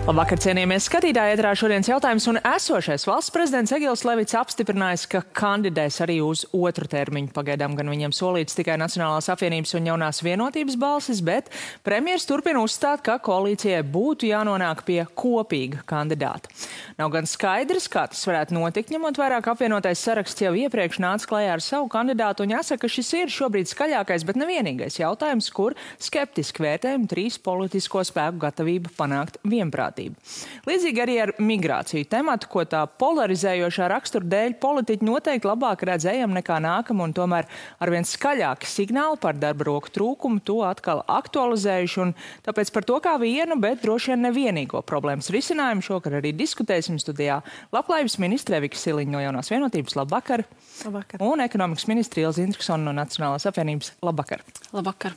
Labvakar, cienījamies skatītāji, ēterā šodienas jautājums, un esošais valsts prezidents Egils Levits apstiprinājis, ka kandidēs arī uz otru termiņu. Pagaidām gan viņam solīts tikai Nacionālās apvienības un jaunās vienotības balsis, bet premjers turpina uzstāt, ka koalīcijai būtu jānonāk pie kopīga kandidāta. Nav gan skaidrs, kā tas varētu notikt, ņemot vairāk apvienotais saraksts jau iepriekš nāca klajā ar savu kandidātu, un jāsaka, ka šis ir šobrīd skaļākais, bet nevienīgais jautājums, kur skeptiski vērtējumi trīs politisko spēku gatavība panākt vienprātību. Līdzīgi arī ar migrāciju tematu, ko tā polarizējošā rakstura dēļ politiķi noteikti labāk redz ejam nekā nākam, un tomēr arvien skaļāki signāli par darba roku trūkumu to atkal aktualizējuši, un tāpēc par to kā vienu, bet droši vien nevienīgo problēmas risinājumu šokar arī diskutēsim studijā Labklājības ministre Evika Siliņa no Jaunās vienotības. Labvakar! Labvakar! Un ekonomikas ministre Ilze Indriksone no Nacionālās apvienības. Labvakar! Labvakar!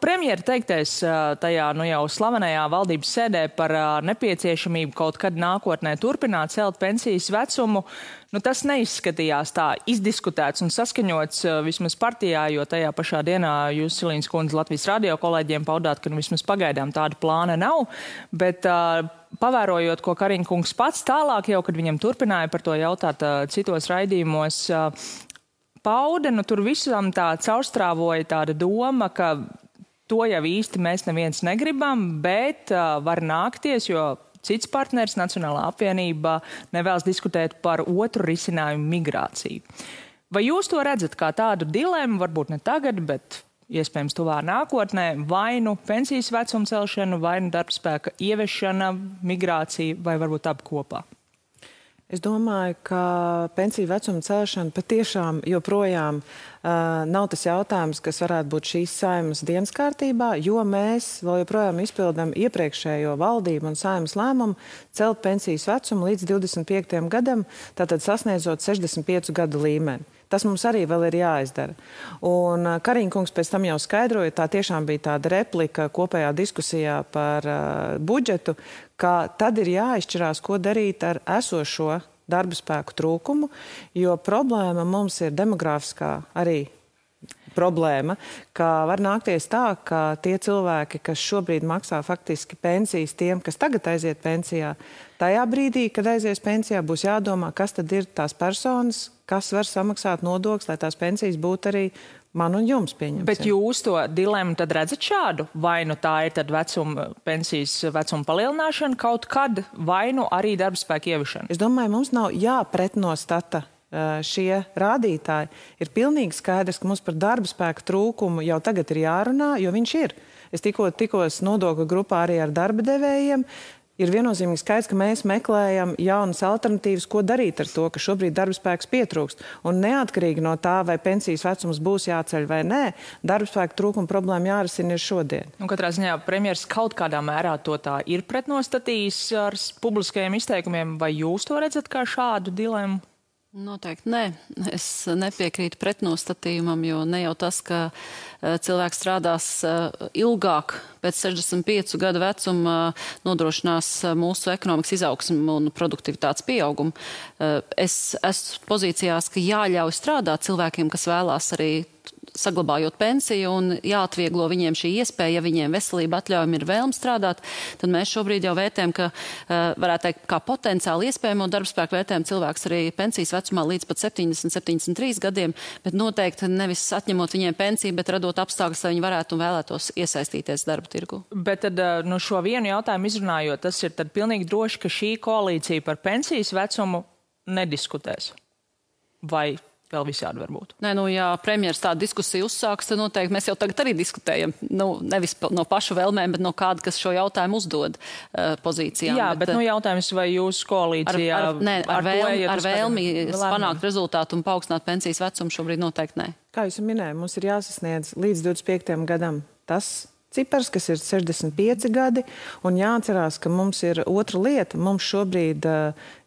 Premjera teiktais tajā jau slavenajā valdības sēdē par nepieciešamību kaut kad nākotnē turpināt celt pensijas vecumu, tas neizskatījās tā izdiskutēts un saskaņots vismaz partijā, jo tajā pašā dienā jūs, Siliņas kundze, Latvijas radio kolēģiem paudāt, ka vismaz pagaidām tāda plāna nav, bet pavērojot, ko Kariņkungs pats tālāk jau, kad viņam turpināja par to jautāt citos raidījumos, pauda, tur visam tā caurstrāvoja tāda doma, ka to jau īsti mēs neviens negribam, bet var nākties, jo cits partners, Nacionālā apvienība, nevēlas diskutēt par otru risinājumu migrāciju. Vai jūs to redzat kā tādu dilemmu, varbūt ne tagad, bet iespējams tuvā nākotnē, vai nu pensijas vecuma celšana, vai nu darbspēka ieviešana, migrācija, vai varbūt abi kopā? Es domāju, ka pensiju vecuma celšana patiešām joprojām nav tas jautājums, kas varētu būt šīs Saeimas dienas kārtībā, jo mēs vēl joprojām izpildām iepriekšējo valdību un Saeimas lēmumu celt pensijas vecumu līdz 25. gadam, tātad sasniedzot 65 gadu līmeni. Tas mums arī vēl ir jāizdara. Un Kariņkungs pēc tam jau skaidroja, tā tiešām bija tāda replika kopējā diskusijā par budžetu, ka tad ir jāizšķirās, ko darīt ar esošo darba spēku trūkumu, jo problēma mums ir demografiskā arī problēma, ka var nākties tā, ka tie cilvēki, kas šobrīd maksā faktiski pensijas tiem, kas tagad aiziet pensijā, tajā brīdī, kad aizies pensijā, būs jādomā, kas tad ir tās personas, kas var samaksāt nodokļus, lai tās pensijas būtu arī man un jums pieņemsim. Bet jūs to dilemmu tad redzat šādu? Vai nu tā ir tad pensijas vecuma palielināšana kaut kad, vai nu arī darba spēka ieviešana? Es domāju, mums nav jāpretnostata šie rādītāji. Ir pilnīgi skaidrs, ka mums par darba spēka trūkumu jau tagad ir jārunā, jo viņš ir. Es tikos nodokļu grupā arī ar darba devējiem. Ir viennozīmīgi skaidrs, ka mēs meklējam jaunas alternatīvas, ko darīt ar to, ka šobrīd darba spēks pietrūkst. Un neatkarīgi no tā, vai pensijas vecums būs jāceļ vai nē, darba spēka trūkuma problēma jārisina ir šodien. Katrā ziņā premjers kaut kādā mērā to tā ir pretnostatījis ar publiskajiem izteikumiem, vai jūs to redzat kā šādu dilemmu? Noteikti nē. Es nepiekrītu pretnostatījumam, jo ne jau tas, ka cilvēks strādās ilgāk pēc 65 gadu vecuma nodrošinās mūsu ekonomikas izaugsmu un produktivitātes pieaugumu. Es esmu pozīcijās, ka jāļauj strādāt cilvēkiem, kas vēlās arī saglabājot pensiju un jāatvieglo viņiem šī iespēja, ja viņiem veselība atļaujumi ir vēlme strādāt, tad mēs šobrīd jau vērtējam, ka varētu teikt, kā potenciāli iespējamo darbspēku vērtējam cilvēks arī pensijas vecumā līdz pat 70-73 gadiem, bet noteikti nevis atņemot viņiem pensiju, bet radot apstākļus, lai viņi varētu un vēlētos iesaistīties darba tirgu. Bet tad šo vienu jautājumu izrunājot, tas ir tad pilnīgi droši, ka šī koalīcija par pensijas vecumu nediskutēs. Vai vēl visādi varbūt? Nē, ja premjeras tādu diskusiju uzsāks, tad noteikti mēs jau tagad arī diskutējam. Nevis no pašu vēlmēm, bet no kāda, kas šo jautājumu uzdod pozīcijām. Jā, bet jautājums, vai jūsu koalīcijā ar vēlmi panākt rezultātu un paaugstināt pensijas vecumu šobrīd noteikti nē. Kā jūs minējāt, mums ir jāsasniedz līdz 25. gadam tas cipars, kas ir 65 gadi, un jāatcerās, ka mums ir otra lieta. Mums šobrīd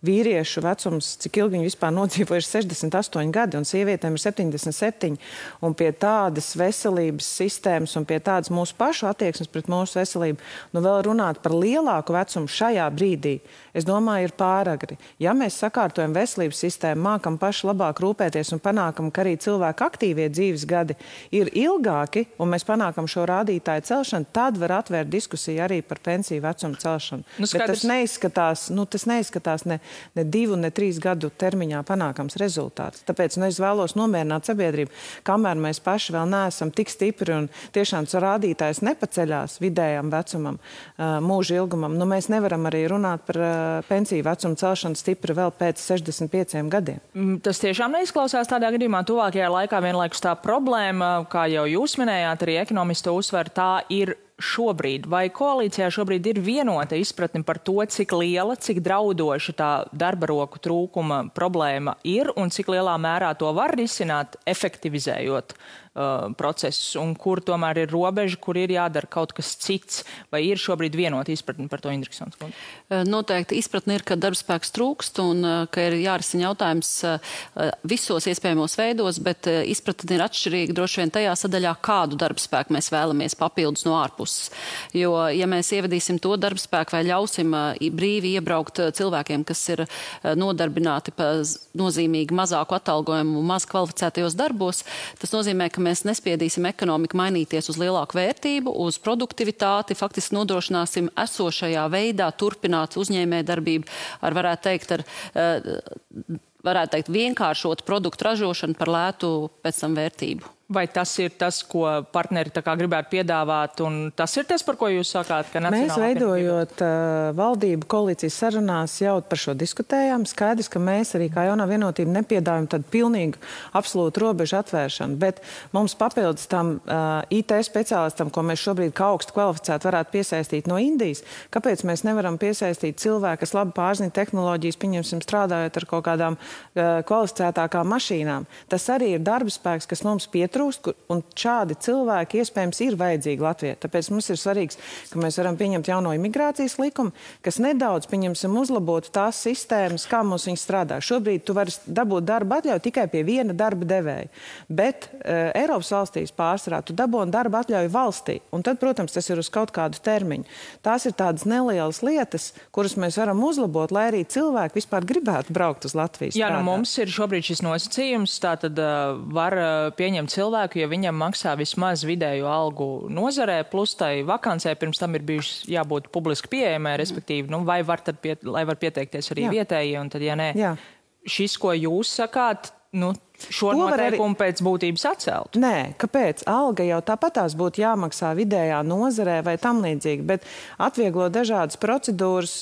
vīriešu vecums, cik ilgi viņi vispār nodzīvojuši, 68 gadi, un sievietēm ir 77. Un pie tādas veselības sistēmas un pie tādas mūsu pašu attieksmes pret mūsu veselību, vēl runāt par lielāku vecumu šajā brīdī, es domāju, ir pāragri. Ja mēs sakārtojam veselības sistēmu, mākam paši labāk rūpēties un panākam, ka arī cilvēku aktīvie dzīves gadi ir ilgāki, un mēs panākam šo rādītāju celšanu, tad var atvērt diskusiju arī par pensiju vecumu celšanu. Bet tas neizskatās ne 2, ne 3 gadu termiņā panākams rezultāts. Tāpēc es vēlos nomierināt sabiedrību, kamēr mēs paši vēl neesam tik stipri un tiešām rādītājs nepaceļās vidējam vecumam, mūža ilgumam. Mēs nevaram arī runāt par pensiju vecumu celšanu stipri vēl pēc 65 gadiem. Tas tiešām neizklausās tādā gadījumā. Tuvākajā laikā vienlaikus tā problēma, kā jau jūs minējāt, arī ekonomisti to uzsver, tā ir šobrīd. Vai koalīcijā šobrīd ir vienota izpratne par to, cik liela, cik draudoša tā darba roku trūkuma problēma ir un cik lielā mērā to var risināt, efektivizējot procesus, un kur tomēr ir robeža, kur ir jādara kaut kas cits, vai ir šobrīd vienota izpratne par to, Indriksons kundze? Noteikti izpratne ir, ka darbspēks trūkst un ka ir jārisina jautājums visos iespējamos veidos, bet izpratne ir atšķirīga droši vien tajā sadaļā, kādu darbspēku mēs vēlamies papildus no ārpuses. Jo, ja mēs ievedīsim to darbspēku vai ļausim brīvi iebraukt cilvēkiem, kas ir nodarbināti pa nozīmīgi mazāku atalgojumu, maz kvalificētajos darbos, tas nozīmē, ka mēs nespiedīsim ekonomiku mainīties uz lielāku vērtību, uz produktivitāti, faktiski nodrošināsim esošajā veidā turpināt uzņēmē darbību ar, varētu teikt, vienkāršot produktu ražošanu par lētu pēc tam vērtību. Vai tas ir tas, ko partneri tā kā gribētu piedāvāt, un tas ir tas, par ko jūs sakāt, ka Mēs veidojot valdību koalīcijas sarunās jau par šo diskutējām. Skaidrs, ka mēs arī kā jaunā vienotība nepiedāvājam tādu pilnīgu absolūtu robežu atvēršanu, bet mums papildus tam IT speciālistam, ko mēs šobrīd kā augstu kvalificētu varētu piesaistīt no Indijas, kāpēc mēs nevaram piesaistīt cilvēku, kas labi pārzina tehnoloģijas, pieņemsim, strādājot ar kaut kādām kvalificētākām mašīnām. Tas arī ir darba spēks, kas mums pietrūkst. Un šādi cilvēki iespējams ir vajadzīgi Latvijai. Tāpēc mums ir svarīgs, ka mēs varam pieņemt jauno imigrācijas likumu, kas nedaudz, pieņemsim, uzlabotu tās sistēmas, kā mums viņi strādā. Šobrīd tu vari dabūt darba atļauju tikai pie viena darba devēja. Bet Eiropas valstīs pārsvarā tu dabūni darba atļauju valstī. Un tad, protams, tas ir uz kaut kādu termiņu. Tās ir tādas nelielas lietas, kuras mēs varam uzlabot, lai arī cilvēki vispār gribētu braukt uz Latvijas. Jā, mums ir šobrīd šis nosacījums, tātad var pieņemt cilvēku, ja viņam maksā vismaz vidēju algu nozarē, plus tai vakancē pirms tam ir bijušas jābūt publiski pieejamai, respektīvi, vai var pieteikties arī vietējie, un tad, ja nē, šis, ko jūs sakāt, šo noteikumu pēc būtības atcelt? Nē, kāpēc? Alga jau tāpatās būtu jāmaksā vidējā nozarē vai tam līdzīgi, bet atvieglo dažādas procedūras,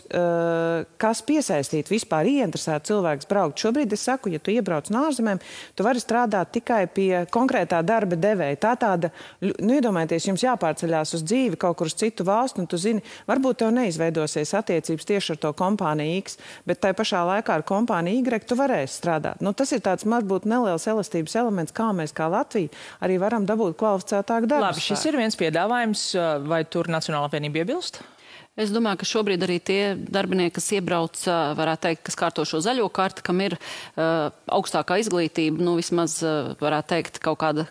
kas piesaistīt vispār ieinteresēt cilvēks braukt. Šobrīd es saku, ja tu iebrauc no ārzemēm, tu vari strādāt tikai pie konkrētā darba devēja. Tā tāda, iedomājieties, jums jāpārceļās uz dzīvi kaut kur uz citu valstu, un tu zini, varbūt tev neizveidosies attiecības tieši ar to kompāniju X, bet tai pašā laikā ar kompāniju Y tu varēsi strādāt. Tas ir tāds, varbūt neliels elastības elements, kā mēs kā Latvija arī varam dabūt kvalificētāku darbu. Labi, šis ir viens piedāvājums, vai tur Nacionālā apvienība iebilst? Es domāju, ka šobrīd arī tie darbinieki, kas iebrauc, varētu teikt, kas kārto šo zaļo karti, kam ir augstākā izglītība, vismaz varētu teikt kaut kāda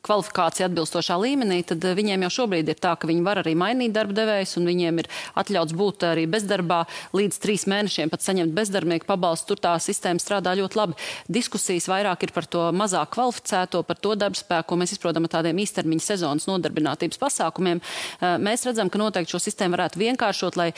kvalifikācija atbilstošā līmenī, tad viņiem jau šobrīd ir tā, ka viņi var arī mainīt darba devējus un viņiem ir atļauts būt arī bezdarbā līdz 3 mēnešiem pat saņemt bezdarbnieku pabalstu. Tur tā sistēma strādā ļoti labi. Diskusijas vairāk ir par to mazāk kvalificēto, par to darbspēku, ko mēs izprotam ar tādiem īstermiņa sezonas nodarbinātības pasākumiem. Mēs redzam, ka noteikti šo sistēmu varētu vienkāršot, lai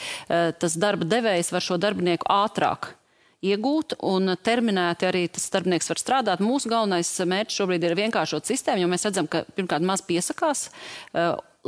tas darba devējs var šo darbinieku ātrāk iegūt un terminēti arī tas darbinieks var strādāt. Mūsu galvenais mērķis šobrīd ir vienkāršot sistēmu, jo mēs redzam, ka pirmkārt maz piesakās.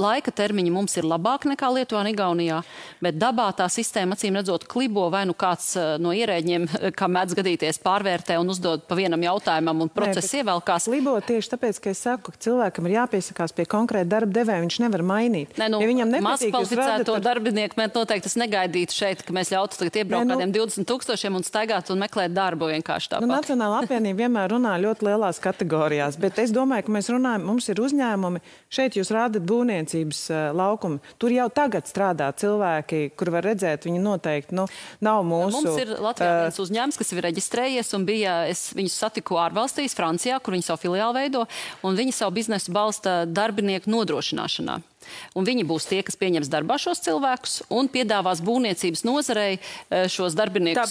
Laika termiņi mums ir labāk nekā Lietuvā un Igaunijā, bet dabā tā sistēma acīm redzot klibo, vai kāds no ierēģiem, kā mēdz gadīties, pārvērtē un uzdod pa vienam jautājumam un process ievelkās. Klibo tieši tāpēc, ka es saku, ka cilvēkam ir jāpiesakās pie konkrēta darba devēja, viņš nevar mainīt. Ja viņam nepatīk, mazkvalificēto darbinieku mēs noteikti negaidītu šeit, ka mēs ļautu tagad iebraukt kādiem 20 000 un staigāt un meklēt darbu vienkārši tāpat. Nacionālā apvienība vienmēr runā ļoti lielās kategorijās, bet es domāju, ka mēs runājam, mums ir uzņēmumi, šeit jūs rādat būvniecības laukumu. Tur jau tagad strādā cilvēki, kur var redzēt, viņi noteikti nav mūsu... Mums ir Latvijā viens uzņēmums, kas ir reģistrējies un es viņus satiku ārvalstīs, Francijā, kur viņi savu filiālu veido, un viņi savu biznesu balsta darbinieku nodrošināšanā. Un viņi būs tie, kas pieņems darbā šos cilvēkus un piedāvās būvniecības nozarei šos darbiniekus,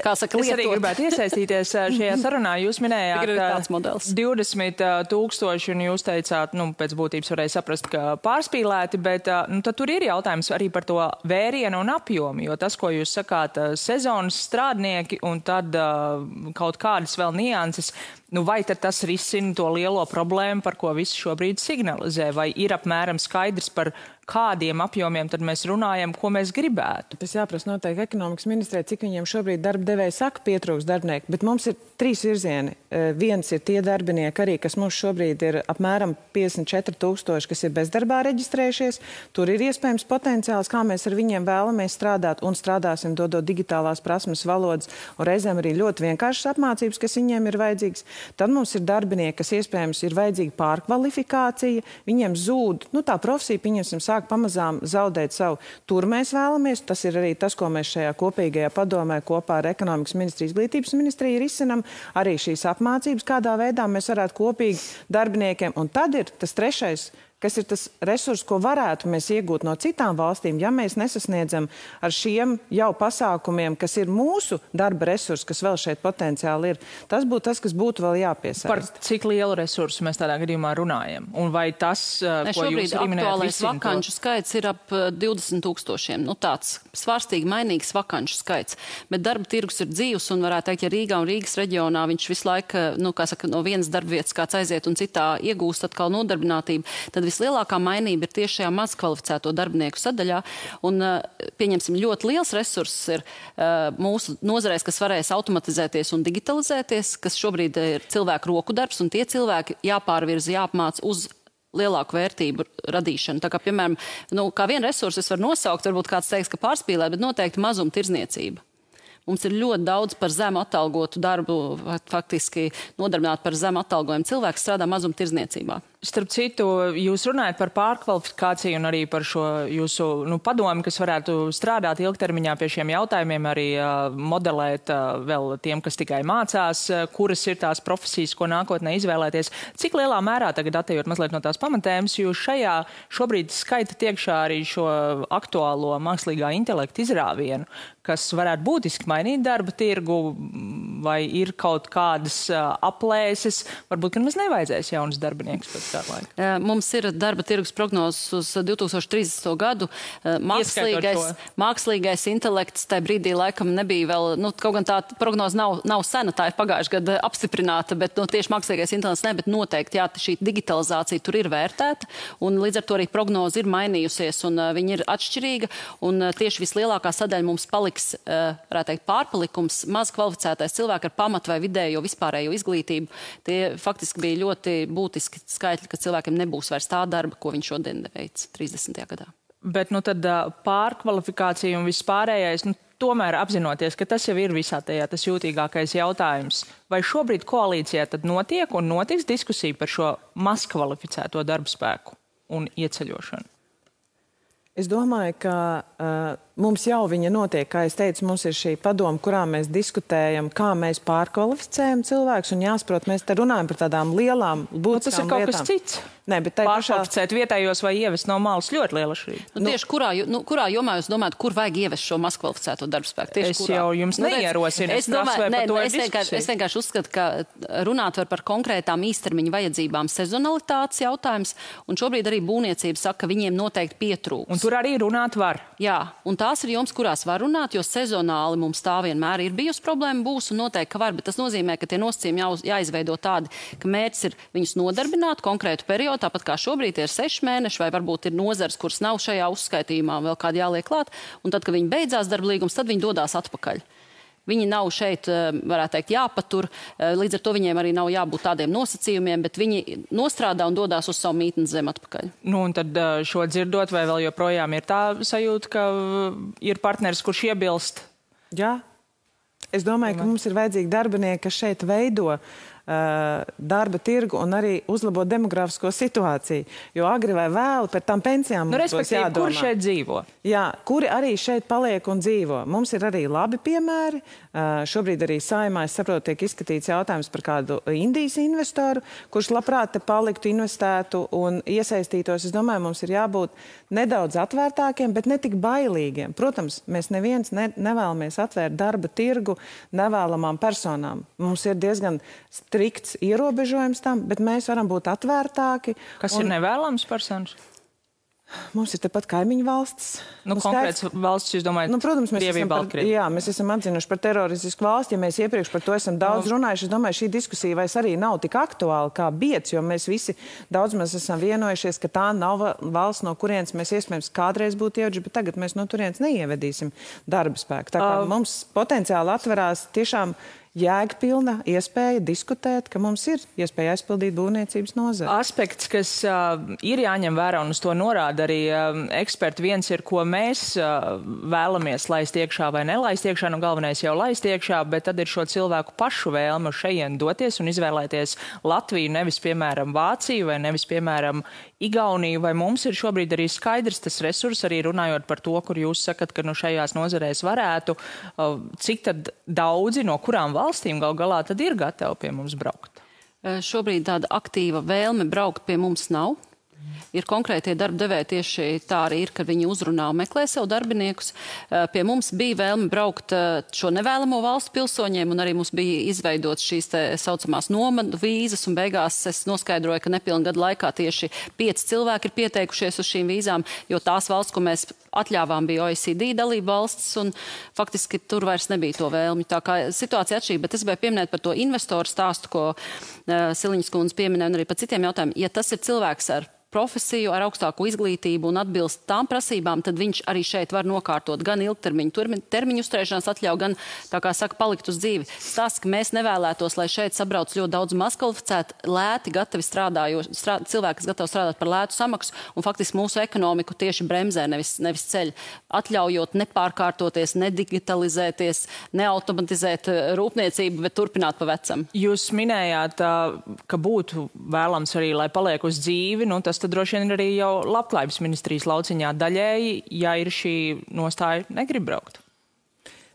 kā saka, lietot. Es arī gribētu iesaistīties šajā sarunā. Jūs minējāt 20 000, un jūs teicāt, pēc būtības varēja saprast, ka pārspīlēti, bet tad tur ir jautājums arī par to vērienu un apjomu, jo tas, ko jūs sakāt, sezonas strādnieki un tad kaut kādas vēl nianses, vai tad tas risina to lielo problēmu, par ko visi šobrīd signalizē, vai ir apmēram skaidrs par kādiem apjomiem tad mēs runājam, ko mēs gribētu? Tas jāprasa noteikti ekonomikas ministrē, cik viņiem šobrīd darba devēja saka pietrūks darbinieku, bet mums ir 3 virzieni. Viens ir tie darbinieki arī, kas mums šobrīd ir apmēram 54 000, kas ir bezdarbā reģistrējušies. Tur ir iespējams potenciāls, kā mēs ar viņiem vēlamies strādāt un strādāsim, dodot digitālās prasmes, valodas un reizēm arī ļoti vienkāršas apmācības, kas viņiem ir vajadzīgas. Tad mums ir darbinieki, kas iespējams ir vajadzīga pārkvalifikācija, viņiem zūd, tā profesija, pieņemsim, sāk pamazām zaudēt savu. Tur mēs vēlamies, tas ir arī tas, ko mēs šajā kopīgajā padomē kopā ar ekonomikas ministriju, izglītības ministriju risinam, arī šīs apmācības, kādā veidā mēs varētu kopīgi darbiniekiem. Un tad ir tas trešais, kas ir tas resurs, ko varētu mēs iegūt no citām valstīm, ja mēs nesasniedzam ar šiem jau pasākumiem, kas ir mūsu darba resursi, kas vēl šeit potenciāli ir. Tas būtu tas, kas būtu vēl jāpiesaist. Par cik lielu resursu mēs tādā gadījumā runājam? Un vai tas, ko jūs arī minējāt, aktuālais vakanču skaits ir ap 20 000. Tāds svārstīgi mainīgs vakanču skaits. Bet darba tirgus ir dzīvs un varētu teikt, ja Rīgā un Rīgas reģionā viņš visu laiku, no vienas darbvietas kāds aiziet un citā iegūst atkal nodarbinātību, tad vislielākā mainība ir tieši šajā mazkvalificēto darbinieku sadaļā. Un, pieņemsim, ļoti liels resurss ir mūsu nozarēs, kas varēs automatizēties un digitalizēties, kas šobrīd ir cilvēku roku darbs, un tie cilvēki jāpārvirza, jāapmāc uz lielāku vērtību radīšanu. Tā kā, piemēram, kā vienu resursu es varu nosaukt, varbūt kāds teiks, ka pārspīlē, bet noteikti mazumtirdzniecība. Mums ir ļoti daudz par zemu atalgotu darbu, faktiski nodarbināt par zemu atalgojumu cilvēku strādā mazumtirdzniecībā. Starp citu, jūs runājat par pārkvalifikāciju un arī par šo jūsu padomu, kas varētu strādāt ilgtermiņā pie šiem jautājumiem, arī modelēt vēl tiem, kas tikai mācās, kuras ir tās profesijas, ko nākotnē izvēlēties. Cik lielā mērā, tagad atejot mazliet no tās pamatēmas, jūs šajā šobrīd skaitat iekšā arī šo aktuālo mākslīgā intelekta izrāvienu, kas varētu būtiski mainīt darba tirgu, vai ir kaut kādas aplēses, varbūt, ka mums nevajadzēs jaunas darbiniekus pēc tā laika? Mums ir darba tirgus prognozes uz 2030. gadu. Mākslīgais intelekts tajā brīdī laikam nebija vēl, kaut gan tā prognoze nav sena, tā ir pagājušajā gadā apstiprināta, bet tieši mākslīgais intelekts ne, bet noteikti, jā, šī digitalizācija tur ir vērtēta, un līdz ar to arī prognoze ir mainījusies, un viņa ir atšķirīga, un tieši vislielākā sadaļa mums paliks, varētu teikt, pārpalikums, maz kvalificētais cilvēki ar pamat vai vidējo vispārējo izglītību. Tie faktiski bija ļoti būtiski skaitļi, ka cilvēkiem nebūs vairs tā darba, ko viņš šodien veic 30. gadā. Bet tad pārkvalifikācija un vispārējais, tomēr apzinoties, ka tas jau ir visā tajā tas jūtīgākais jautājums. Vai šobrīd koalīcijā tad notiek un notiks diskusija par šo mazkvalificēto darba spēku un ieceļošanu? Es domāju, ka mums jau viņa notiek, kā es teicu, mums ir šī padoma, kurā mēs diskutējam, kā mēs pārkvalificējam cilvēkus, un jāsaprot, mēs te runājam par tādām lielām būtiskām lietām. Tas ir kaut kas cits. Nē, bet pārkvalificēt vietējos vai ievest no malas ļoti liela šķirība. Tieši kurā jomā jūs domājat, kur vajag ievest šo mazkvalificēto darba spēku? Es jau jums neierosinu. Es vienkārši uzskatu, ka runāt var par konkrētām īstermiņa vajadzībām sezonalitātes jautājums, un šobrīd arī būvniecība saka, ka viņiem noteikti pietrūks. Un tur arī runāt var. Jā, un tās ir joms, kurās var runāt, jo sezonāli mums tā vienmēr ir bijusi problēma, būs un noteikti, ka var, bet tas nozīmē, ka tie nosacījumi jāizveido tādi, ka mērķis ir viņus nodarbināt konkrētu periodu, tāpat kā šobrīd ir 6 mēneši, vai varbūt ir nozars, kuras nav šajā uzskaitījumā, vēl kādi jāliek klāt, un tad, kad viņi beidzās darba līgums, tad viņi dodās atpakaļ. Viņi nav šeit, varētu teikt, jāpatur, līdz ar to viņiem arī nav jābūt tādiem nosacījumiem, bet viņi nostrādā un dodās uz savu mītnes zemi atpakaļ. Un tad šo dzirdot, vai vēl joprojām ir tā sajūta, ka ir partneris, kurš iebilst? Jā. Es domāju, ka mums ir vajadzīgi darbinieki, kas šeit veido darba tirgu un arī uzlabot demografisko situāciju. Jo agri vai vēl par tām pensijām mums būs jādomā. Kur šeit dzīvo? Jā, kuri arī šeit paliek un dzīvo. Mums ir arī labi piemēri. Šobrīd arī Saeimā, es saprotu, tiek izskatīts jautājums par kādu Indijas investoru, kurš labprāt te paliktu, investētu un iesaistītos. Es domāju, mums ir jābūt nedaudz atvērtākiem, bet ne tik bailīgiem. Protams, mēs neviens nevēlamies atvērt darba tirgu nevēlamām personām. Mums ir diezgan strikts ierobežojums tam, bet mēs varam būt atvērtāki. Kas ir nevēlams personas? Mums ir tepat kaimiņu valsts. Konkrēts valsts, jūs domājat, protams, mēs esam atzinuši par teroristisku valsti. Ja mēs iepriekš par to esam daudz runājuši, es domāju, šī diskusija vairs arī nav tik aktuāla kā biedz, jo mēs visi daudz mēs esam vienojušies, ka tā nav valsts, no kurienes mēs iespējams kādreiz būtu ieveduši, bet tagad mēs no turienes neievedīsim darba spēku. Tā kā mums potenciāli atverās tiešām jēgpilna iespēja diskutēt, ka mums ir iespēja aizpildīt būvniecības nozari. Aspekts, kas ir jāņem vērā, un uz to norāda arī eksperti, viens ir, ko mēs vēlamies laist iekšā vai nelaist iekšā, nu galvenais jau laist iekšā, bet tad ir šo cilvēku pašu vēlmu šajien doties un izvēlēties Latviju, nevis, piemēram, Vāciju vai nevis, piemēram, Igauniju, vai mums ir šobrīd arī skaidrs tas resurs, arī runājot par to, kur jūs sakat, ka nu šajās nozarēs varētu, cik tad daudzi no kurām valstīm gal galā tad ir gatavi pie mums braukt? Šobrīd tāda aktīva vēlme braukt pie mums nav. Ir konkrētie darba devēji tieši tā arī ir, kad viņi uzrunā un meklē sev darbiniekus. Pie mums bija vēlme braukt šo nevēlamo valstu pilsoņiem, un arī mums bija izveidots šīs te saucamās nomadu vīzas, un beigās es noskaidroju, ka nepilna gada laikā tieši 5 cilvēki ir pieteikušies uz šīm vīzām, jo tās valsts, ko mēs atļāvām, bija OECD dalība valsts, un faktiski tur vairs nebija to vēlmi. Tā kā situācija atšķirīga, bet es gribēju pieminēt par to investoru stāstu, ko Siliņas kundze pieminēja, un arī par citiem jautājumiem. Ja tas ir cilvēks ar profesiju, ar augstāku izglītību un atbilst tām prasībām, tad viņš arī šeit var nokārtot gan ilgtermiņu termiņu uzturēšanās atļauju, gan, tā kā saka, palikt uz dzīvi. Stāsts, ka mēs nevēlētos, lai šeit sabrauc ļoti daudz mazkvalificētu, lēti, gatavi cilvēki, kas gatavi strādāt par lētu samaksu, un faktiski mūsu ekonomiku tieši bremzē, nevis ceļ, atļaujot nepārkārtoties, nedigitalizēties, neautomatizēt rūpniecību, bet turpināt pa vecam. Jūs minējāt, ka būtu vēlams arī, lai paliek uz dzīvi, nu tas tad droši vien arī jau Labklājības ministrijas lauciņā daļēji, ja ir šī nostāja, negrib braukt.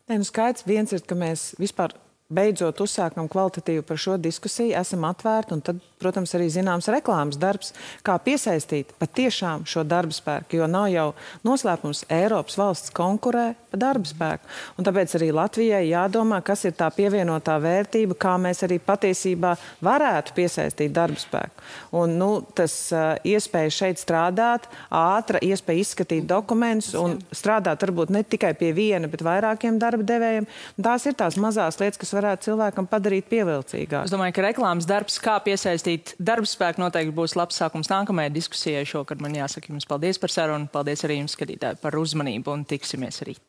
Nē, nu skaidrs, viens ir, ka mēs vispār beidzot uzsākam kvalitatīvu par šo diskusiju, esam atvērti, un tad, protams, arī zināms reklāmas darbs, kā piesaistīt patiešām šo darba spēku, jo nav jau noslēpums, Eiropas valsts konkurē par darba spēku. Un tāpēc arī Latvijai jādomā, kas ir tā pievienotā vērtība, kā mēs arī patiesībā varētu piesaistīt darba spēku. Un, nu, tas iespēja šeit strādāt, ātra iespēja izskatīt dokumentus un strādāt varbūt ne tikai pie viena, bet vairākiem darba devējiem. Un tās ir tās mazās lietas, kas varētu cilvēkam padarīt pievilcīgāk. Es domāju, ka reklāmas darbs, kā piesaistīt darba spēku, noteikti būs labs sākums nākamajai diskusijai šokad. Man jāsaka jums paldies par sarunu, paldies arī jums, skatītāji, par uzmanību un tiksimies rīt.